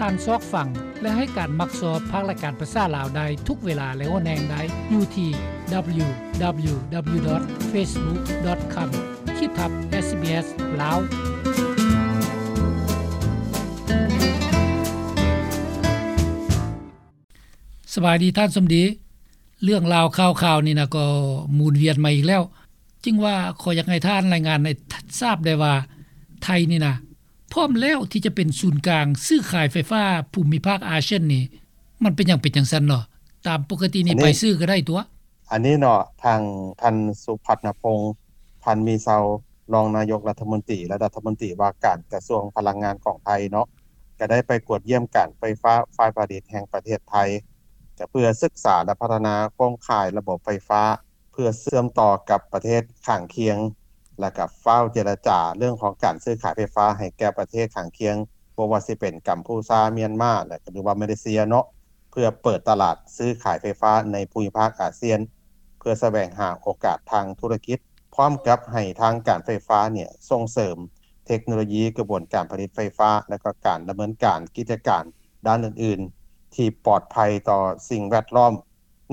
ການຊອກຟັງ ແລະ ໃຫ້ການມັກຊອບພາກລາຍການພາສາລາວໄດ້ທຸກເວລາ ແລະ ຫົວແຮງໄດ້ຢູ່ທີ່ www.facebook.com ຂີດທັບ SBS ລາວ. ສະບາຍດີທ່ານສົມດີ. ເລື່ອງລາວຂ່າວໆນີ້ນະ ກໍໝູນວຽນມາອີກແລ້ວ. ຈຶ່ງວ່າຂໍຢາກໃຫ້ທ່ານລາຍງານໃຫ້ ທ- ຊາບໄດ້ວ່າ ໄທນີ້ນະ ພ້ອມແລ້ວທີ່ຈະເປັນສູນກາງຊື້ຂາຍໄຟຟ້າພູມິພາກອາຊຽນນີ້ ມັນເປັນຫຍັງເປັນຈັ່ງຊັ້ນເນາະ? ຕາມປົກກະຕິນີ້ ອັນນີ້ ໄປຊື້ກໍໄດ້ຕົວະ. ອັນນີ້ເນາະ ທາງທ່ານ ສຸພັດນະພົງ ພັນມີເຊົາ ຮອງນາຍົກລັດຖະມົນຕີ ແລະ ລັດຖະມົນຕີວ່າການກະຊວງພະລັງງານຂອງໄທເນາະ ກໍໄດ້ໄປກວດຢ້ຽມການໄຟຟ້າຝ່າຍຜະລິດແຫ່ງປະເທດໄທ ກໍເພື່ອສຶກສາ ແລະ ພັດທະນາໂຄງຂ່າຍລະບົບໄຟຟ້າ ເພື່ອເຊື່ອມຕໍ່ກັບປະເທດຂ້າງຄຽງ ແລະ ກໍຟ້າວເຈລະຈາເລື່ອງຂອງການຊື້ຂາຍໄຟຟ້າໃຫ້ແກ່ປະເທດຂ້າງຄຽງ ບໍ່ວ່າຊິເປັນກຳພູຊາ, ມຽນມາ ແລະ ຫຼືວ່າມາເລເຊຍເນາະ ເພື່ອເປີດຕະຫຼາດຊື້ຂາຍໄຟຟ້າໃນພູມິພາກອາຊຽນ ເພື່ອສະແຫວງຫາໂອກາດທາງທຸລະກິດ ພ້ອມກັບໃຫ້ທາງການໄຟຟ້າເນ່ຍສົ່ງເສີມເທັກໂນໂລຢີກະບວນການຜະລິດໄຟຟ້າ ແລະ ກໍການດຳເນີນການກິດຈະການດ້ານອື່ນໆ ທີ່ປອດໄພຕໍ່ສິ່ງແວດລ້ອມ.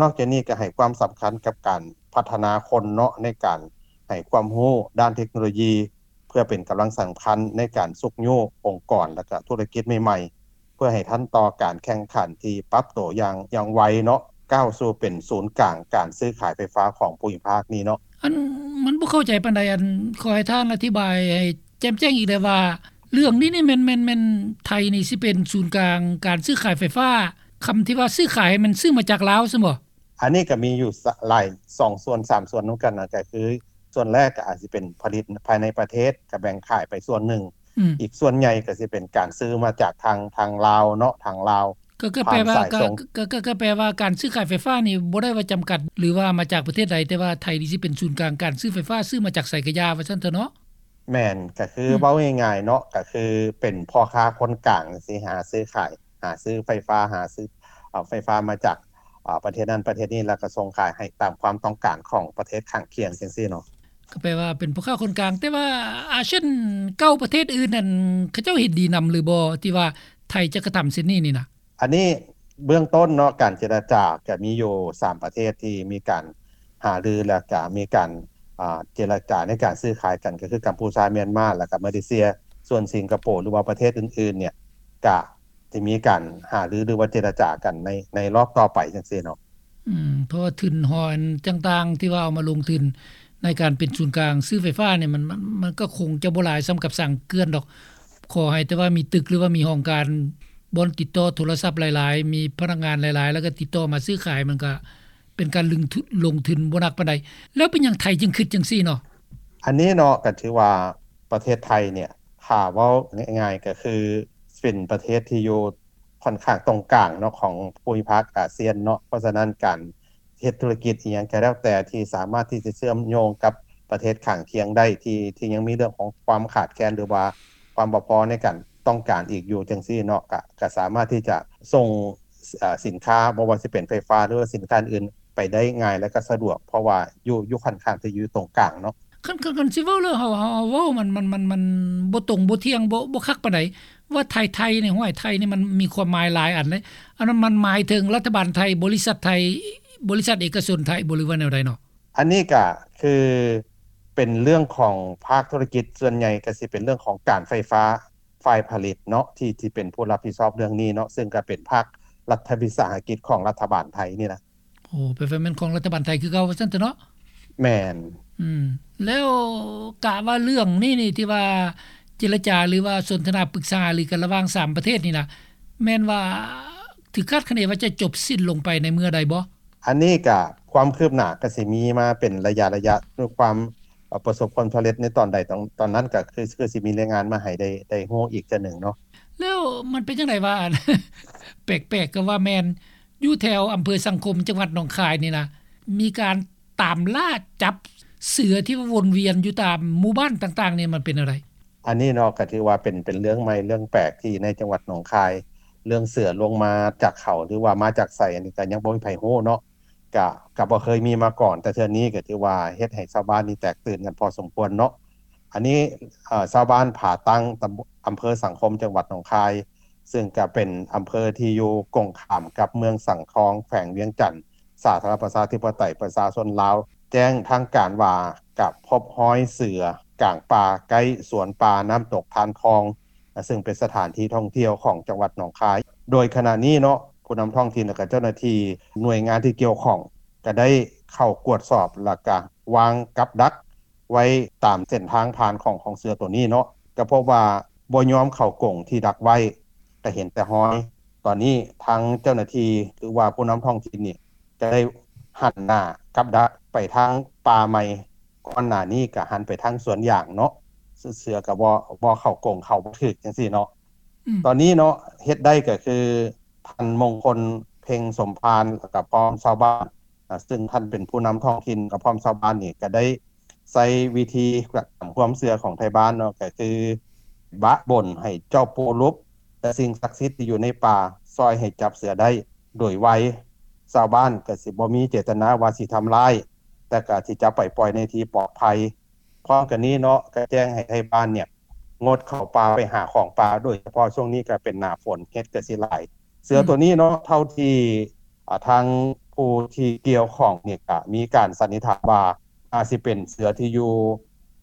ນອກຈາກນີ້ກໍໃຫ້ຄວາມສຳຄັນກັບການພັດທະນາຄົນເນາະ ໃນການໃຫ້ຄວາມຮູ້ດ້ານເທັກໂນໂລຢີ ເພື່ອເປັນກຳລັງສຳຄັນໃນການຊຸກຍູ້ອົງກອນ ແລະ ກະທຸລະກິດໃໝ່ໆ ເພື່ອໃຫ້ທັນຕໍ່ການແຂ່ງຂັນທີ່ປັບໂຕຢ່າງ ຢ່າງໄວເນາະ ກ້າວສູ່ເປັນສູນກາງການຊື້ຂາຍໄຟຟ້າຂອງພູມິພາກນີ້ເນາະ. ອັນ ມັນບໍ່ເຂົ້າໃຈປານໃດ ອັນ ຂໍໃຫ້ທ່ານອະທິບາຍໃຫ້ແຈ່ມແຈ້ງອີກແດ່ວ່າ ເລື່ອງນີ້ນີ້ແມ່ນ ແມ່ນ ແມ່ນໄທນີ້ຊິເປັນສູນກາງການຊື້ຂາຍໄຟຟ້າ ຄຳທີ່ວ່າຊື້ຂາຍ ແມ່ນຊື້ມາຈາກລາວຊັ້ນບໍ່? ອັນນີ້ກໍມີຢູ່ສະ ຫຼາຍ ສອງສ່ວນສາມສ່ວນນຳກັນນະ ກໍຄືສ່ວນແລກກໍອາດຊິເປັນຜະລິດພາຍໃນປະເທດ ກໍແບ່ງຂາຍໄປສ່ວນໜຶ່ງ ອືມ ອີກສ່ວນໃຫຍ່ກໍຊິເປັນການຊື້ມາຈາກທາງ ທາງລາວເນາະ ທາງລາວ ກໍ ກໍແປວ່າ ຜ່ານສາຍສົ່ງ ກໍ ກໍ ກໍ ກໍແປວ່າການຊື້ຂາຍໄຟຟ້ານີ້ບໍ່ໄດ້ວ່າຈຳກັດ ຫຼືວ່າມາຈາກປະເທດໃດ ແຕ່ວ່າໄທນີ້ຊິເປັນສູນກາງການຊື້ໄຟຟ້າ ຊື້ມາຈາກໃສກະຢ່າ ວ່າຊັ້ນເຖາະເນາະ. ແມ່ນ ກໍຄື ອືມ ເວົ້າງ່າຍໆເນາະ ກໍຄືເປັນພໍ່ຄ້າຄົນກາງ ຊິຫາຊື້ຂາຍ ຫາຊື້ໄຟຟ້າ ຫາຊື້ເອົາໄຟຟ້າມາຈາກ ອາ ປະເທດນັ້ນປະເທດນີ້ ແລ້ວກໍສົ່ງຂາຍໃຫ້ຕາມຄວາມຕ້ອງການຂອງປະເທດຂ້າງຄຽງຈັ່ງຊີ້ເນາະ. ກໍແປວ່າເປັນພໍ່ຄ້າຄົນກາງ ແຕ່ວ່າອາຊຽນເກົ້າປະເທດອື່ນນັ້ນ ເຂົາເຈົ້າເຫັນດີນຳຫຼືບໍ່ ທີ່ວ່າໄທຈະກະທຳເຊັ່ນນີ້ນີ້ນະ? ອັນນີ້ເບື້ອງຕົ້ນເນາະ ການເຈລະຈາກໍມີຢູ່ສາມປະເທດທີ່ມີການຫາລື ແລ້ວກໍມີການ ອາ ເຈລະຈາໃນການຊື້ຂາຍກັນ ກໍຄືກຳພູຊາ, ມຽນມາ ແລ້ວກໍມາເລເຊຍ. ສ່ວນສິງກະໂປ ຫຼືວ່າປະເທດອື່ນໆເນ່ຍ ກະ ທີ່ມີການຫາລື ຫຼືວ່າເຈລະຈາກັນໃນ ໃນລອບຕໍ່ໄປຈັ່ງຊີ້ເນາະ. ອືມ ເພາະວ່າທຶນຮອນຕ່າງໆ ທີ່ວ່າເອົາມາລົງທຶນໃນການເປັນສູນກາງຊື້ໄຟຟ້ານີ້ ມັນ ມັນ ມັນກໍຄົງຈະບໍ່ຫຼາຍສ່ຳກັບສ້າງເຂື່ອນດອກ. ຂໍໃຫ້ແຕ່ວ່າມີຕຶກ ຫຼືວ່າມີຫ້ອງການ ບ່ອນຕິດຕໍ່ໂທລະສັບຫຼາຍໆ ມີພະນັກງານຫຼາຍໆ ແລ້ວກໍຕິດຕໍ່ມາຊື້ຂາຍ ມັນກໍເປັນການລົງທຶນ ລົງທຶນບໍ່ໜັກປານໃດ. ແລ້ວເປັນຫຍັງໄທຈຶ່ງຄິດຈັ່ງຊີ້ເນາະ? ອັນນີ້ເນາະ ກໍຖືວ່າ ປະເທດໄທເນ່ຍ ຖ້າເວົ້າງ່າຍໆ ກໍຄືເປັນປະເທດທີ່ຢູ່ຂ້ອນຂ້າງຕົງກາງເນາະ ຂອງພູມິພາກອາຊຽນເນາະ. ເພາະສະນັ້ນ ການເຮັດທຸລະກິດອີ່ຫຍັງກໍແລ້ວແຕ່ ທີ່ສາມາດທີ່ຈະເຊື່ອມໂຍງກັບປະເທດຂ້າງຄຽງໄດ້ ທີ່ ທີ່ຍັງມີເລື່ອງຂອງຄວາມຂາດແຄນ ຫຼືວ່າຄວາມບໍ່ພໍໃນການຕ້ອງການອີກຢູ່ຈັ່ງຊີ້ເນາະ ກະ ກະສາມາດທີ່ຈະສົ່ງ ເອີ ສິນຄ້າ ບໍ່ວ່າຊິເປັນໄຟຟ້າ ຫຼືວ່າສິນຄ້າອື່ນໆ ໄປໄດ້ງ່າຍ ແລະ ກໍສະດວກ ເພາະວ່າຢູ່ ຢູ່ຂ້ອນຂ້າງທີ່ຢູ່ຕົງກາງເນາະ. ຄັນ ຄັນ ຄັນຊິເວົ້າແລ້ວ ເຮົາ ເຮົາ ເຮົາເວົ້າມັນ ມັນ ມັນ ມັນບໍ່ຕົງ ບໍ່ທ່ຽງ ບໍ່ ບໍ່ຄັກປານໃດ ວ່າໄທ ໄທນີ້ ຫ້ວຍ ໄທນີ້ມັນມີຄວາມໝາຍຫຼາຍອັນເດ້. ອັນນັ້ນມັນໝາຍເຖິງລັດຖະບານໄທ, ບໍລິສັດໄທ, ບໍລິສັດເອກະຊົນໄທບໍ ຫຼືວ່າແນວໃດເນາະ? ອັນນີ້ກະຄືເປັນເລື່ອງຂອງພາກທຸລະກິດ ສ່ວນໃຫຍ່ກະຊິເປັນເລື່ອງຂອງການໄຟຟ້າ ຝ່າຍຜະລິດເນາະ ທີ່ ທີ່ເປັນຜູ້ຮັບຜິດຊອບເລື່ອງນີ້ເນາະ ເຊິ່ງກະເປັນພາກລັດວິສາຫະກິດຂອງລັດຖະບານໄທນີ້ລະ. ໂອ້ ແປວ່າແມ່ນຂອງລັດຖະບານໄທຄືເກົ່າວ່າຊັ້ນເຖາະເນາະ? ແມ່ນ. ອືມ ແລ້ວກະວ່າເລື່ອງນີ້ນີ້ ທີ່ວ່າເຈລະຈາ ຫຼືວ່າສົນທະນາປຶກສາຫາລືກັນລະຫວ່າງສາມປະເທດນີ້ນະ ແມ່ນວ່າຖືກຄາດຄະເນວ່າຈະຈົບສິ້ນລົງໄປໃນເມື່ອໃດບໍ່? ອັນນີ້ກະຄວາມຄືບໜ້າກະຊິມີມາເປັນໄລຍະໆ ດ້ວຍຄວາມ ເອີ ປະສົບຜົນສຳເລັດໃນຕອນໃດ ຕອນ ຕອນນັ້ນກະຄື ຄືຊິມີລາຍງານມາໃຫ້ໄດ້ ໄດ້ຮູ້ອີກເທື່ອໜຶ່ງເນາະ. ແລ້ວມັນເປັນຈັ່ງໃດວ່າ ອັນ ແປກໆ ກໍວ່າແມ່ນ ຢູ່ແຖວອຳເພີສັງຄົມ ຈັງຫວັດໜອງຄາຍນີ້ນະ ມີການຕາມລ່າຈັບເສືອທີ່ວ່າວົນວຽນຢູ່ຕາມໝູ່ບ້ານຕ່າງໆນີ້ ມັນເປັນແນວໃດ? ອັນນີ້ເນາະ ກໍຖືວ່າເປັນ ເປັນເລື່ອງໃໝ່ເລື່ອງແປກທີ່ໃນຈັງຫວັດໜອງຄາຍ ເລື່ອງເສືອລົງມາຈາກເຂົາ ຫຼືວ່າມາຈາກໃສ ອັນນີ້ກໍຍັງບໍ່ມີໃຜຮູ້ເນາະ. ກະ ກະບໍ່ເຄີຍມີມາກ່ອນ ແຕ່ເທື່ອນີ້ກໍຖືວ່າເຮັດໃຫ້ຊາວບ້ານນີ້ແຕກຕື່ນກັນພໍສົມຄວນເນາະ. ອັນນີ້ ເອີ ຊາວບ້ານຜາຕັ້ງ ຕຳ ອຳເພີສັງຄົມ ຈັງຫວັດໜອງຄາຍ ຊຶ່ງກໍເປັນອຳເພີທີ່ຢູ່ກົງຂ້າມກັບເມືອງສັງທອງ ແຂວງວຽງຈັນ ສາທາລະນະລັດປະຊາທິປະໄຕປະຊາຊົນລາວ ແຈ້ງທາງການວ່າ ກະພົບຮອຍເສືອກາງປ່າ ໃກ້ສວນປ່ານ້ຳຕົກທານທອງ ຊຶ່ງເປັນສະຖານທີ່ທ່ອງທ່ຽວຂອງຈັງຫວັດໜອງຄາຍ. ໂດຍຂະນະນີ້ເນາະ ຜູ້ນຳທ້ອງຖິ່ນ ແລະ ກະເຈົ້າໜ້າທີ່ໜ່ວຍງານທີ່ກ່ຽວຂ້ອງ ກະໄດ້ເຂົ້າກວດສອບ ແລະ ກະວາງກັບດັກໄວ້ຕາມເສັ້ນທາງຜ່ານຂອງ ຂອງເສືອໂຕນີ້ເນາະ ກະພົບວ່າບໍ່ຍອມເຂົ້າກົງທີ່ດັກໄວ້ ກະເຫັນແຕ່ຮອຍ. ຕອນນີ້ທາງເຈົ້າໜ້າທີ່ ຫຼືວ່າຜູ້ນຳທ້ອງຖິ່ນນີ້ ກະໄດ້ຫັນໜ້າກັບດັກໄປທາງປ່າໃໝ່ ກ່ອນໜ້ານີ້ກະຫັນໄປທາງສວນຢາງເນາະ ເສືອ ເສືອກະບໍ່ ບໍ່ເຂົ້າກົງ ເຂົ້າບໍ່ຖືກຈັ່ງຊີ້ເນາະ. ອືມ ຕອນນີ້ເນາະ ເຮັດໄດ້ກະຄື ທ່ານມົງຄົນ ເພັງສົມພານ ແລະກະພ້ອມຊາວບ້ານ ອາ ຊຶ່ງທ່ານເປັນຜູ້ນຳທ້ອງຖິ່ນ ກະພ້ອມຊາວບ້ານນີ້ ກະໄດ້ໃຊ້ວິທີຕາມຄວາມເຊື່ອຂອງໄທບ້ານເນາະ ກະຄືບະບົນໃຫ້ເຈົ້າປູ່ລຸບ ແລະ ສິ່ງສັກສິດທີ່ຢູ່ໃນປ່າ ຊ່ອຍໃຫ້ຈັບເສືອໄດ້ໂດຍໄວ. ຊາວບ້ານກະຊິບໍ່ມີເຈດຕະນາວ່າຊິທຳຮ້າຍ ແຕ່ກະຊິຈັບໄປປ່ອຍໃນທີ່ປອດໄພ. ພ້ອມກັນນີ້ເນາະ ກະແຈ້ງໃຫ້ໄທບ້ານເນຍ ງົດເຂົ້າປ່າໄປຫາຂອງປ່າ ໂດຍສະເພາະຊ່ວງນີ້ກະເປັນໜ້າຝົນ ເຫັດກະຊິຫຼາຍ. ເສືອ ອືມ ໂຕນີ້ເນາະ ເທົ່າທີ່ ອາ ທາງຜູ້ທີ່ກ່ຽວຂ້ອງນີ້ກະມີການສັນນິຖານວ່າ ອາດຊິເປັນເສືອທີ່ຢູ່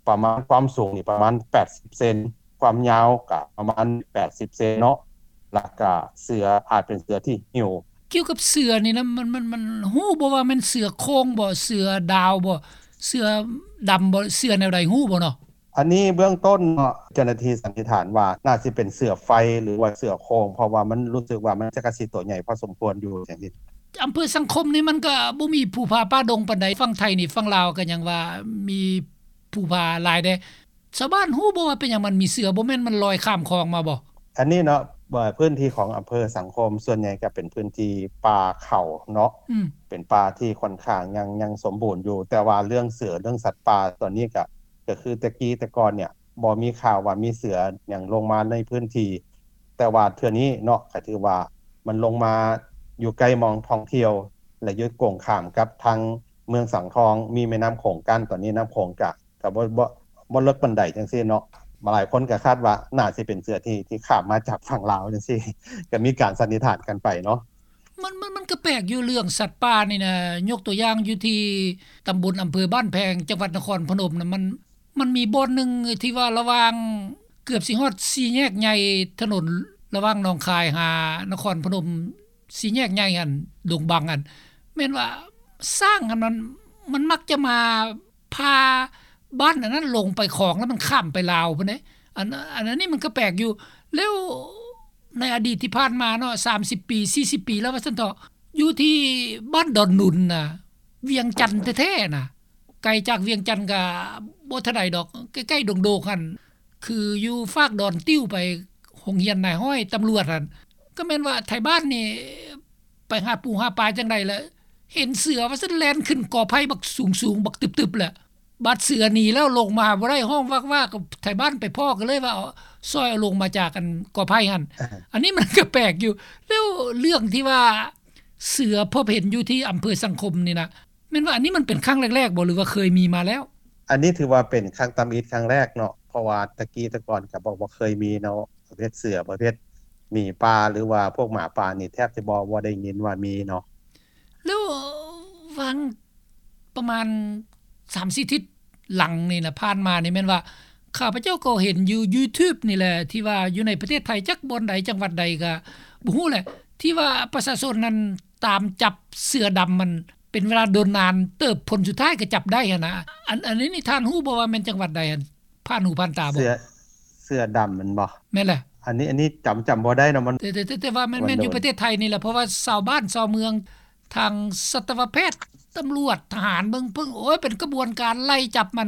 ປະມານ ຄວາມສູງນີ້ປະມານແປດສິບເຊັນ ຄວາມຍາວກະປະມານແປດສິບເຊັນເນາະ ແລະກະເສືອອາດເປັນເສືອທີ່ຫິວ. ກ່ຽວກັບເສືອນີ້ນະ ມັນ ມັນ ມັນຮູ້ບໍ່ວ່າແມ່ນເສືອໂຄ່ງບໍ່ ເສືອດາວບໍ່ ເສືອດຳບໍ່ ເສືອແນວໃດ ຮູ້ບໍ່ເນາະ? ອັນນີ້ເບື້ອງຕົ້ນເນາະ ເຈົ້າໜ້າທີ່ສັນນິຖານວ່າ ໜ້າຊິເປັນເສືອໄຟ ຫຼືວ່າເສືອໂຄ່ງ ເພາະວ່າມັນຮູ້ສຶກວ່າມັນຈະກະຊິໂຕໃຫຍ່ພໍສົມຄວນຢູ່ຈັ່ງຊີ້. ອຳເພີສັງຄົມນີ້ມັນກະບໍ່ມີພູຜາປ່າດົງປານໃດ ຝັ່ງໄທນີ້ ຝັ່ງລາວກະຍັງວ່າມີພູຜາຫຼາຍເດ້. ຊາວບ້ານຮູ້ບໍ່ວ່າເປັນຫຍັງມັນມີເສືອ ບໍ່ແມ່ນມັນລອຍຂ້າມຂອງມາບໍ່? ອັນນີ້ເນາະ ເອີ ພື້ນທີ່ຂອງອຳເພີສັງຄົມ ສ່ວນໃຫຍ່ກະເປັນພື້ນທີ່ປ່າເຂົາເນາະ ອືມ ເປັນປ່າທີ່ຂ້ອນຂ້າງຍັງ ຍັງສົມບູນຢູ່ ແຕ່ວ່າເລື່ອງເສືອ ເລື່ອງສັດປ່າ ຕອນນີ້ກະ ກະຄືແຕ່ກີ້ແຕ່ກ່ອນເນຍ ບໍ່ມີຂ່າວວ່າມີເສືອຫຍັງລົງມາໃນພື້ນທີ່ ແຕ່ວ່າເທື່ອນີ້ເນາະ ກະຖືວ່າມັນລົງມາຢູ່ໃກ້ໝ່ອງທ່ອງທ່ຽວ ແລະ ຢູ່ກົງຂ້າມກັບທາງເມືອງສັງທອງ ມີແມ່ນ້ຳໂຂງກັ້ນ ຕອນນີ້ນ້ຳໂຂງກະ ກະບໍ່ ບໍ່ ບໍ່ເລິກປານໃດຈັ່ງຊີ້ເນາະ. ຫຼາຍຄົນກະຄາດວ່າໜ້າຊິເປັນເສືອທີ່ ທີ່ຂ້າມມາຈາກຝັ່ງລາວຈັ່ງຊີ້ ກະມີການສັນນິຖານກັນໄປເນາະ. ມັນ ມັນ ມັນກະແປກຢູ່ເລື່ອງສັດປ່ານີ້ນະ ຍົກຕົວຢ່າງຢູ່ທີ່ຕຳບົນອຳເພີບ້ານແພງ ຈັງຫວັດນະຄອນພະນົມນະ ມັນ ມັນມີບ່ອນໜຶ່ງທີ່ວ່າລະຫວ່າງ ເກືອບຊິຮອດສີ່ແຍກໃຫຍ່ ຖະໜົນລະຫວ່າງໜອງຄາຍຫານະຄອນພະນົມ ສີ່ແຍກໃຫຍ່ຫັ້ນ ດົງບັງຫັ້ນ ແມ່ນວ່າຊ້າງຫັ້ນ ມັນ ມັນມັກຈະມາຜ່າບ້ານອັນນັ້ນລົງໄປຂອງ ແລ້ວມັນຂ້າມໄປລາວພຸ້ນເດ້. ອັນ ອັນ ອັນນີ້ມັນກະແປກຢູ່ ແລ້ວໃນອະດີດທີ່ຜ່ານມາເນາະ ສາມສິບປີ ສີ່ສິບປີແລ້ວວ່າຊັ້ນເຖາະ ຢູ່ທີ່ບ້ານດອນໜຸນນະ ວຽງຈັນແທ້ໆນະ ໄກຈາກວຽງຈັນກະບໍ່ເທົ່າໃດດອກ ໃກ້ໆດົງໂດກຫັ້ນ ຄືຢູ່ຟາກດອນຕິ້ວໄປໂຮງຮຽນນາຍຮ້ອຍຕຳຫຼວດຫັ້ນ ກະແມ່ນວ່າໄທບ້ານນີ້ໄປຫາປູຫາປາຈັ່ງໃດລະ ເຫັນເສືອວ່າຊັ້ນແລ່ນຂຶ້ນກໍໄຜ່ບັກສູງໆ ບັກຕຶບໆ ລະບາດເສືອໜີແລ້ວລົງມາບໍ່ໄດ້ ຮ້ອງວາກໆ ກະໄທບ້ານໄປພໍ້ກະເລີຍວ່າ ເອົາ ຊ່ອຍເອົາລົງມາຈາກອັນກໍໄຜ່ຫັ້ນ. ອັນນີ້ມັນກະແປກຢູ່ ແລ້ວເລື່ອງທີ່ວ່າເສືອພົບເຫັນຢູ່ທີ່ອຳເພີສັງຄົມນີ້ນະ ແມ່ນວ່າອັນນີ້ມັນເປັນຄັ້ງແລກໆບໍ່ ຫຼືວ່າເຄີຍມີມາແລ້ວ? ອັນນີ້ຖືວ່າເປັນຄັ້ງທຳອິດຄັ້ງແລກເນາະ ເພາະວ່າແຕ່ກີ້ແຕ່ກ່ອນກະບໍ່ ບໍ່ເຄີຍມີເນາະ ປະເພດເສືອ ປະເພດໝີປ່າ ຫຼືວ່າພວກໝາປ່ານີ້ແທບຈະບໍ່ ບໍ່ໄດ້ຍິນວ່າມີເນາະ. ແລ້ວຫວ່າງປະມານສາມສີ່ທິດຫຼັງນີ້ນະ ຜ່ານມານີ້ແມ່ນວ່າ ຂ້າພະເຈົ້າກໍເຫັນຢູ່ຢູທູບນີ້ແຫຼະ ທີ່ວ່າຢູ່ໃນປະເທດໄທ ຈັກບ່ອນໃດ ຈັງຫວັດໃດກະບໍ່ຮູ້ແຫຼະ ທີ່ວ່າປະຊາຊົນນັ້ນ ຕາມຈັບເສືອດຳມັນເປັນເວລາດົນນານເຕີບ ຜົນສຸດທ້າຍກະຈັບໄດ້ຫັ້ນນະ. ອັນ ອັນນີ້ນີ້ທ່ານຮູ້ບໍ່ວ່າແມ່ນຈັງຫວັດໃດຫັ້ນ ຜ່ານຫູຜ່ານຕາບໍ່? ເສືອ ເສືອດຳແມ່ນບໍ່? ແມ່ນແຫຼະ. ອັນນີ້ ອັນນີ້ຈຳ ຈຳບໍ່ໄດ້ເນາະ ມັນ ແຕ່ ແຕ່ ແຕ່ ແຕ່ວ່າແມ່ນ ແມ່ນຢູ່ປະເທດໄທນີ້ແຫຼະ ເພາະວ່າຊາວບ້ານຊາວເມືອງ ທາງສັດຕະວະແພດ ຕຳຫຼວດ ທະຫານ ເບິ່ງເພິ່ງ ໂອ້ຍ ເປັນຂະບວນການໄລ່ຈັບມັນ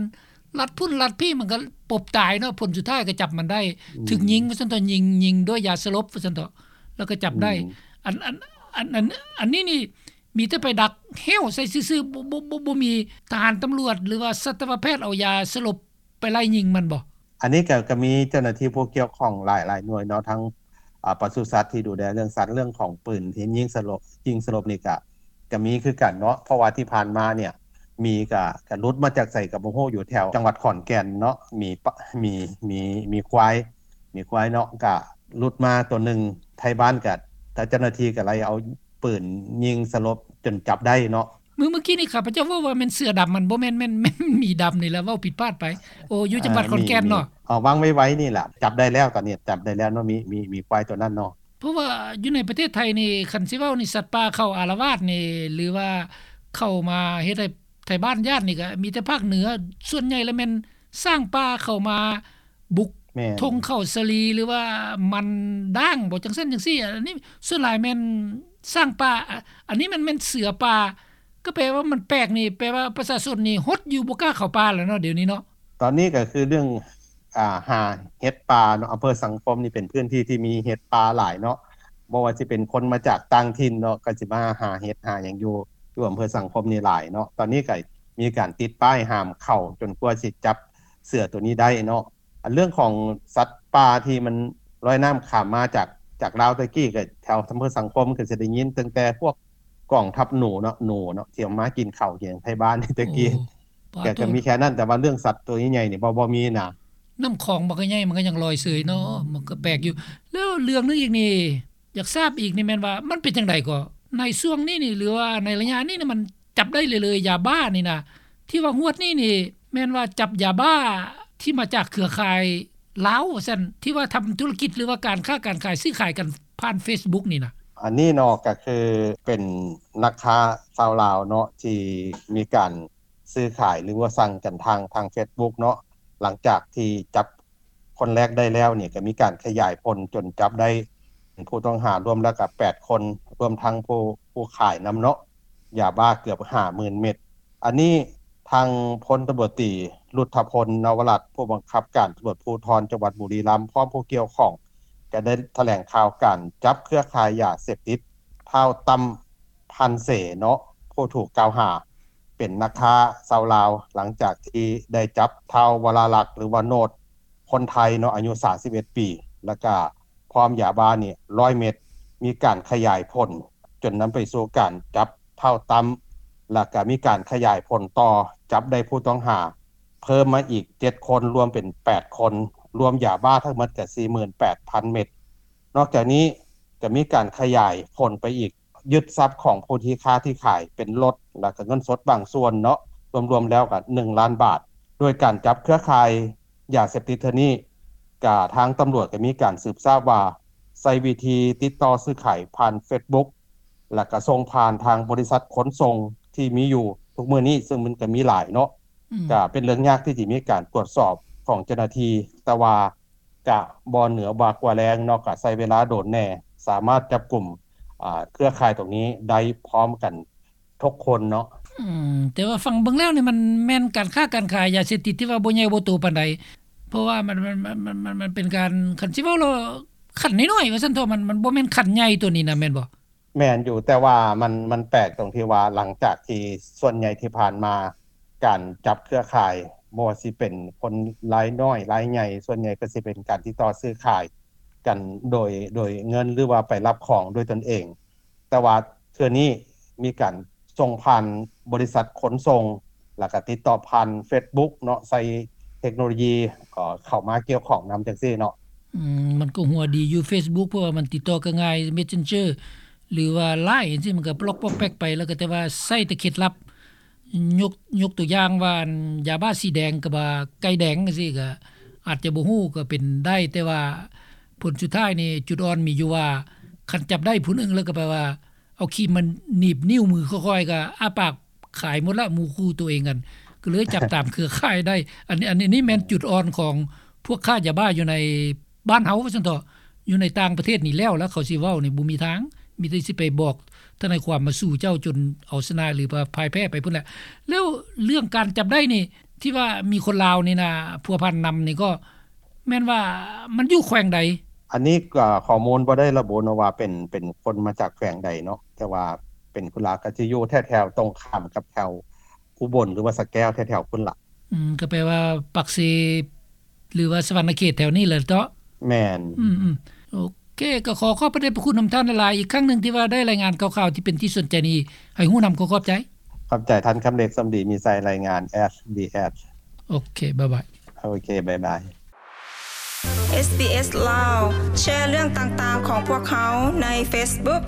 ລັດພຸ້ນລັດພີ້ ມັນກະປົບຕາຍເນາະ ຜົນສຸດທ້າຍກະຈັບມັນໄດ້ ອືມ ຖືກຍິງວ່າຊັ້ນເຖາະ ຍິງ ຍິງດ້ວຍຢາສະຫຼົບວ່າຊັ້ນເຖາະ ແລ້ວກະຈັບໄດ້. ອືມ ອັນ ອັນ ອັນ ອັນ ອັນນີ້ນີ້ ມີແຕ່ໄປດັກແຫ້ວໃສ່ຊື່ໆ ບໍ່ ບໍ່ ບໍ່ ບໍ່ມີທະຫານຕຳຫຼວດ ຫຼືວ່າສັດຕະວະແພດເອົາຢາສະຫຼົບໄປໄລ່ຍິງມັນບໍ່? ອັນນີ້ກະ ກະມີເຈົ້າໜ້າທີ່ຜູ້ກ່ຽວຂ້ອງຫຼາຍ ຫຼາຍໜ່ວຍເນາະ ທັງ ອາ ປະສຸສັດທີ່ດູແລເລື່ອງສັດ ເລື່ອງຂອງປືນທີ່ຍິງສະຫຼົບ ຍິງສະຫຼົບນີ້ກະ ກະມີຄືກັນເນາະ ເພາະວ່າທີ່ຜ່ານມາເນຍ ໝີກະ ກະຫຼຸດມາຈາກໃສກະບໍ່ຮູ້ ຢູ່ແຖວຈັງຫວັດຂອນແກ່ນເນາະ ໝີ ໝີ ໝີ ໝີຄວາຍ ໝີຄວາຍເນາະ ກະຫຼຸດມາໂຕໜຶ່ງ ໄທບ້ານກໍ ເຈົ້າໜ້າທີ່ກໍໄລ່ເອົາປືນຍິງສະຫຼົບຈົນຈັບໄດ້ເນາະ. ມື້ ມື້ກີ້ນີ້ຂ້າພະເຈົ້າເວົ້າວ່າແມ່ນເສືອດຳ ມັນບໍ່ແມ່ນ ແມ່ນ ແມ່ນໝີດຳນີ້ແຫຼະ ເວົ້າຜິດພາດໄປ. ໂອ້ ຢູ່ຈັງຫວັດຂອນແກ່ນເນາະ. ເອີ ວາງໄວໆນີ້ແຫຼະ ຈັບໄດ້ແລ້ວ ຕອນນີ້ຈັບໄດ້ແລ້ວເນາະ ໝີ ໝີ ໝີຄວາຍໂຕນັ້ນເນາະ. ເພາະວ່າຢູ່ໃນປະເທດໄທນີ້ ຄັນຊິເວົ້ານີ້ ສັດປ່າເຂົາອາລະວາດນີ້ ຫຼືວ່າເຂົ້າມາເຮັດໃຫ້ໄທບ້ານຢ້ານນີ້ ກໍມີແຕ່ພາກເໜືອ ສ່ວນໃຫຍ່ລະແມ່ນຊ້າງປ່າເຂົ້າມາບຸກ ແມ່ນ ທົ່ງເຂົ້າສາລີ ຫຼືວ່າມັນດ້າງບໍ ຈັ່ງຊັ້ນຈັ່ງຊີ້. ອັນນີ້ສ່ວນຫຼາຍແມ່ນຊ້າງປ່າ ອ- ອັນນີ້ມັນແມ່ນເສືອປ່າ ກໍແປວ່າມັນແປກນີ້ ແປວ່າປະຊາຊົນນີ້ຫົດຢູ່ ບໍ່ກ້າເຂົ້າປ່າແລ້ວເນາະ ດຽວນີ້ເນາະ. ຕອນນີ້ກໍຄືເລື່ອງ ອ່າ ຫາເຫັດປ່າເນາະ. ອຳເພີສັງຄົມນີ້ເປັນພື້ນທີ່ທີ່ມີເຫັດປ່າຫຼາຍເນາະ. ບໍ່ວ່າຊິເປັນຄົນມາຈາກຕ່າງຖິ່ນເນາະ ກໍຊິມາຫາເຫັດຫາຫຍັງຢູ່ ຢູ່ອຳເພີສັງຄົມນີ້ຫຼາຍເນາະ. ຕອນນີ້ກໍມີການຕິດປ້າຍຫ້າມເຂົ້າ ຈົນກວ່າຊິຈັບເສືອໂຕນີ້ໄດ້ເນາະ. ອັນເລື່ອງຂອງສັດປ່າທີ່ມັນລອຍນ້ຳຂ້າມມາຈາກ ຈາກລາວແຕ່ກີ້ ກໍແຖວອຳເພີສັງຄົມກໍຊິໄດ້ຍິນຕັ້ງແຕ່ພວກກອງທັບໜູເນາະ ໜູເນາະ ທີ່ເອົາມາກິນເຂົ້າກິນຫຍັງໄທບ້ານແຕ່ກີ້. ໂອ້ ກໍ ກໍມີແຄ່ນັ້ນ ແຕ່ວ່າເລື່ອງສັດໂຕໃຫຍ່ໆນີ້ບໍ່ ບໍ່ມີນະ. ນ້ຳຂອງມັນກໍໃຫຍ່ ມັນກໍຍັງລອຍເຊີຍເນາະ ມັນກໍແປກຢູ່. ແລ້ວເລື່ອງໜຶ່ງອີກນີ້ ຢາກຊາບອີກນີ້ແມ່ນວ່າ ມັນເປັນຈັ່ງໃດກໍ ໃນຊ່ວງນີ້ນີ້ ຫຼືວ່າໃນໄລຍະນີ້ນີ້ ມັນຈັບໄດ້ເລື້ອຍໆ ຢາບ້ານີ້ນະ ທີ່ວ່າງວດນີ້ນີ້ ແມ່ນວ່າຈັບຢາບ້າທີ່ມາຈາກເຄືອຂ່າຍລາວວ່າຊັ້ນ ທີ່ວ່າທຳທຸລະກິດ ຫຼືວ່າການຄ້າການຂາຍ ຊື້ຂາຍກັນຜ່ານເຟສບຸກນີ້ນະ. ອັນນີ້ເນາະ ກໍຄືເປັນນັກຄ້າຊາວລາວເນາະ ທີ່ມີການຊື້ຂາຍ ຫຼືວ່າສັ່ງກັນທາງ ທາງເຟສບຸກເນາະ. ຫຼັງຈາກທີ່ຈັບ ຄົນແລກໄດ້ແລ້ວນີ້ ກໍມີການຂະຫຍາຍຜົນຈົນຈັບໄດ້ຜູ້ຕ້ອງຫາລວມແລ້ວກໍແປດຄົນ ລວມທັງຜູ້ ຜູ້ຂາຍນຳເນາະ ຢາບ້າເກືອບຫ້າໝື່ນເມັດ. ອັນນີ້ທາງພົນຕຳຫຼວດຕີ ລຸດທະພົນ ນະວະລັດ ຜູ້ບັງຄັບການຕຳຫຼວດພູທອນຈັງຫວັດບຸລີລັມ ພ້ອມຜູ້ກ່ຽວຂ້ອງ ກໍໄດ້ຖະແຫຼງຂ່າວການຈັບເຄືອຂ່າຍຢາເສບຕິດ ທ້າວ ຕັ້ມ ພັນເສ ເນາະ ຜູ້ຖືກກ່າວຫາ ເປັນນັກຄ້າຊາວລາວ ຫຼັງຈາກທີ່ໄດ້ຈັບທ້າວ ວະລາລັກ ຫຼືວ່າໂນດ ຄົນໄທເນາະ ອາຍຸສາມສິບເອັດປີ ແລ້ວກະພ້ອມຢາບ້ານີ້ຮ້ອຍເມັດ. ມີການຂະຫຍາຍຜົນຈົນນຳໄປສູ່ການຈັບທ້າວ ຕັ້ມ ແລ້ວກະມີການຂະຫຍາຍຜົນຕໍ່ ຈັບໄດ້ຜູ້ຕ້ອງຫາເພີ່ມມາອີກເຈັດຄົນ ລວມເປັນແປດຄົນ ລວມຢາບ້າທັງໝົດກະສີ່ໝື່ນແປດພັນເມັດ. ນອກຈາກນີ້ກະມີການຂະຫຍາຍຜົນໄປອີກ ຍຶດຊັບຂອງຜູ້ທີ່ຄ້າທີ່ຂາຍເປັນລົດ ແລ້ວກະເງິນສົດບາງສ່ວນເນາະ ລວມໆແລ້ວກະໜຶ່ງລ້ານບາດ. ໂດຍການຈັບເຄືອຂ່າຍຢາເສບຕິດເທື່ອນີ້ ກະທາງຕຳຫຼວດກະມີການສືບຊາບວ່າ ໃຊ້ວິທີຕິດຕໍ່ຊື້ຂາຍຜ່ານເຟສບຸກ ແລ້ວກະສົ່ງຜ່ານທາງບໍລິສັດຂົນສົ່ງທີ່ມີຢູ່ທຸກມື້ນີ້ ເຊິ່ງມັນກະມີຫຼາຍເນາະ. ອືມ ກະເປັນເລື່ອງຍາກທີ່ຈະມີການກວດສອບຂອງເຈົ້າໜ້າທີ່ ແຕ່ວ່າ ກະບໍ່ເໜືອບາກວ່າແລງເນາະ ກະໃຊ້ເວລາດົນແດ່ ສາມາດຈັບກຸມ ອ່າ ເຄືອຂ່າຍຕົງນີ້ໄດ້ພ້ອມກັນທຸກຄົນເນາະ. ອືມ ແຕ່ວ່າຟັງເບິ່ງແລ້ວນີ້ ມັນແມ່ນການຄ້າການຂາຍຢາເສບຕິດທີ່ວ່າບໍ່ໃຫຍ່ບໍ່ໂຕປານໃດ ເພາະວ່າມັນ ມັນ ມັນ ມັນ ມັນເປັນການ ຄັນຊິເວົ້າແລ້ວ ຂັ້ນນ້ອຍໆ ວ່າຊັ້ນເຖາະ ມັນ ມັນບໍ່ແມ່ນຂັ້ນໃຫຍ່ໂຕນີ້ນະ ແມ່ນບໍ່? ແມ່ນຢູ່ ແຕ່ວ່າມັນ ມັນແປກຕົງທີ່ວ່າ ຫຼັງຈາກທີ່ສ່ວນໃຫຍ່ທີ່ຜ່ານມາ ການຈັບເຄືອຂ່າຍ ບໍ່ວ່າຊິເປັນຄົນລາຍນ້ອຍລາຍໃຫຍ່ ສ່ວນໃຫຍ່ກໍຊິເປັນການຕິດຕໍ່ຊື້ຂາຍກັນໂດຍ ໂດຍເງິນ ຫຼືວ່າໄປຮັບຂອງດ້ວຍຕົນເອງ. ແຕ່ວ່າເທື່ອນີ້ມີການສົ່ງຜ່ານບໍລິສັດຂົນສົ່ງ ແລ້ວກໍຕິດຕໍ່ຜ່ານເຟສບຸກເນາະ ໃຊ້ເທັກໂນໂລຢີ ເອີ ເຂົ້າມາກ່ຽວຂ້ອງນຳຈັ່ງຊີ້ເນາະ. ອືມ ມັນກໍຫົວດີຢູ່ເຟສບຸກ ເພາະວ່າມັນຕິດຕໍ່ກໍງ່າຍ ເມັດເຊັນເຈີ ຫຼືວ່າລາຍຈັ່ງຊີ້ ມັນກໍປະລັອກປອກແປັກໄປ ແລ້ວກໍແຕ່ວ່າໃຊ້ແຕ່ເຄັດລັບ ຍົກ ຍົກຕົວຢ່າງວ່າ ອັນ ຢາບ້າສີແດງກັບວ່າໄກ່ແດງຈັ່ງຊີ້ ກໍອາດຈະບໍ່ຮູ້ກໍເປັນໄດ້ ແຕ່ວ່າຜົນສຸດທ້າຍນີ້ ຈຸດອ່ອນມີຢູ່ວ່າ ຄັນຈັບໄດ້ຜູ້ໜຶ່ງແລ້ວກໍແປວ່າ ເອົາຄີມມາໜີບນິ້ວມືຄ່ອຍໆ ກໍອ້າປາກຂາຍໝົດລະ ໝູ່ຄູ່ຕົວເອງຫັ້ນ ກໍເລີຍຈັບຕາມເຄືອຂ່າຍໄດ້. ອັນນີ້ ອັນນີ້ແມ່ນຈຸດອ່ອນຂອງພວກຄ້າຢາບ້າຢູ່ໃນບ້ານເຮົາວ່າຊັ້ນເຖາະ. ຢູ່ໃນຕ່າງປະເທດນີ້ແລ້ວລະ ເຂົາຊິເວົ້ານີ້ບໍ່ມີທາງ ມີແຕ່ຊິໄປບອກທະນາຍຄວາມມາສູ້ເຈົ້າຈົນເອົາຊະນະ ຫຼືວ່າພ່າຍແພ້ໄປພຸ້ນແຫຼະ. ແລ້ວເລື່ອງການຈັບໄດ້ນີ້ ທີ່ວ່າມີຄົນລາວນີ້ນະພົວພັນນຳນີ້ ກໍແມ່ນວ່າມັນຢູ່ແຂວງໃດ? ອັນນີ້ກໍຂໍ້ມູນບໍ່ໄດ້ລະບຸເນາະວ່າເປັນ ເປັນຄົນມາຈາກແຂວງໃດເນາະ ແຕ່ວ່າເປັນຄົນລາວ ກໍຈະຢູ່ແຖວໆຕົງຂ້າມກັບແຖວອຸບົນ ຫຼືວ່າສະແກ້ວ ແຖວໆພຸ້ນລະ. ອືມ ກໍແປວ່າປາກເຊ ຫຼືວ່າສະຫວັນນະເຂດແຖວນີ້ແຫຼະເນາະ? ແມ່ນ. ອືມໆ ໂອເຄ ກໍຂໍຂອບພະເດດພະຄຸນນຳທ່ານຫຼາຍໆ ອີກຄັ້ງໜຶ່ງທີ່ວ່າໄດ້ລາຍງານຂ່າວໆທີ່ເປັນທີ່ສົນໃຈນີ້ ໃຫ້ຮູ້ນຳ. ຂໍຂອບໃຈ. ຂອບໃຈທ່ານຄຳເລັກ ສົມດີມີໄຊ ລາຍງານ ເອສບີເອສ. ໂອເຄ ບາຍບາຍ. ໂອເຄ ບາຍບາຍ. ເອສບີເອສ ລາວ ແຊເລື່ອງຕ່າງໆຂອງພວກເຮົາໃນເຟສບຸກ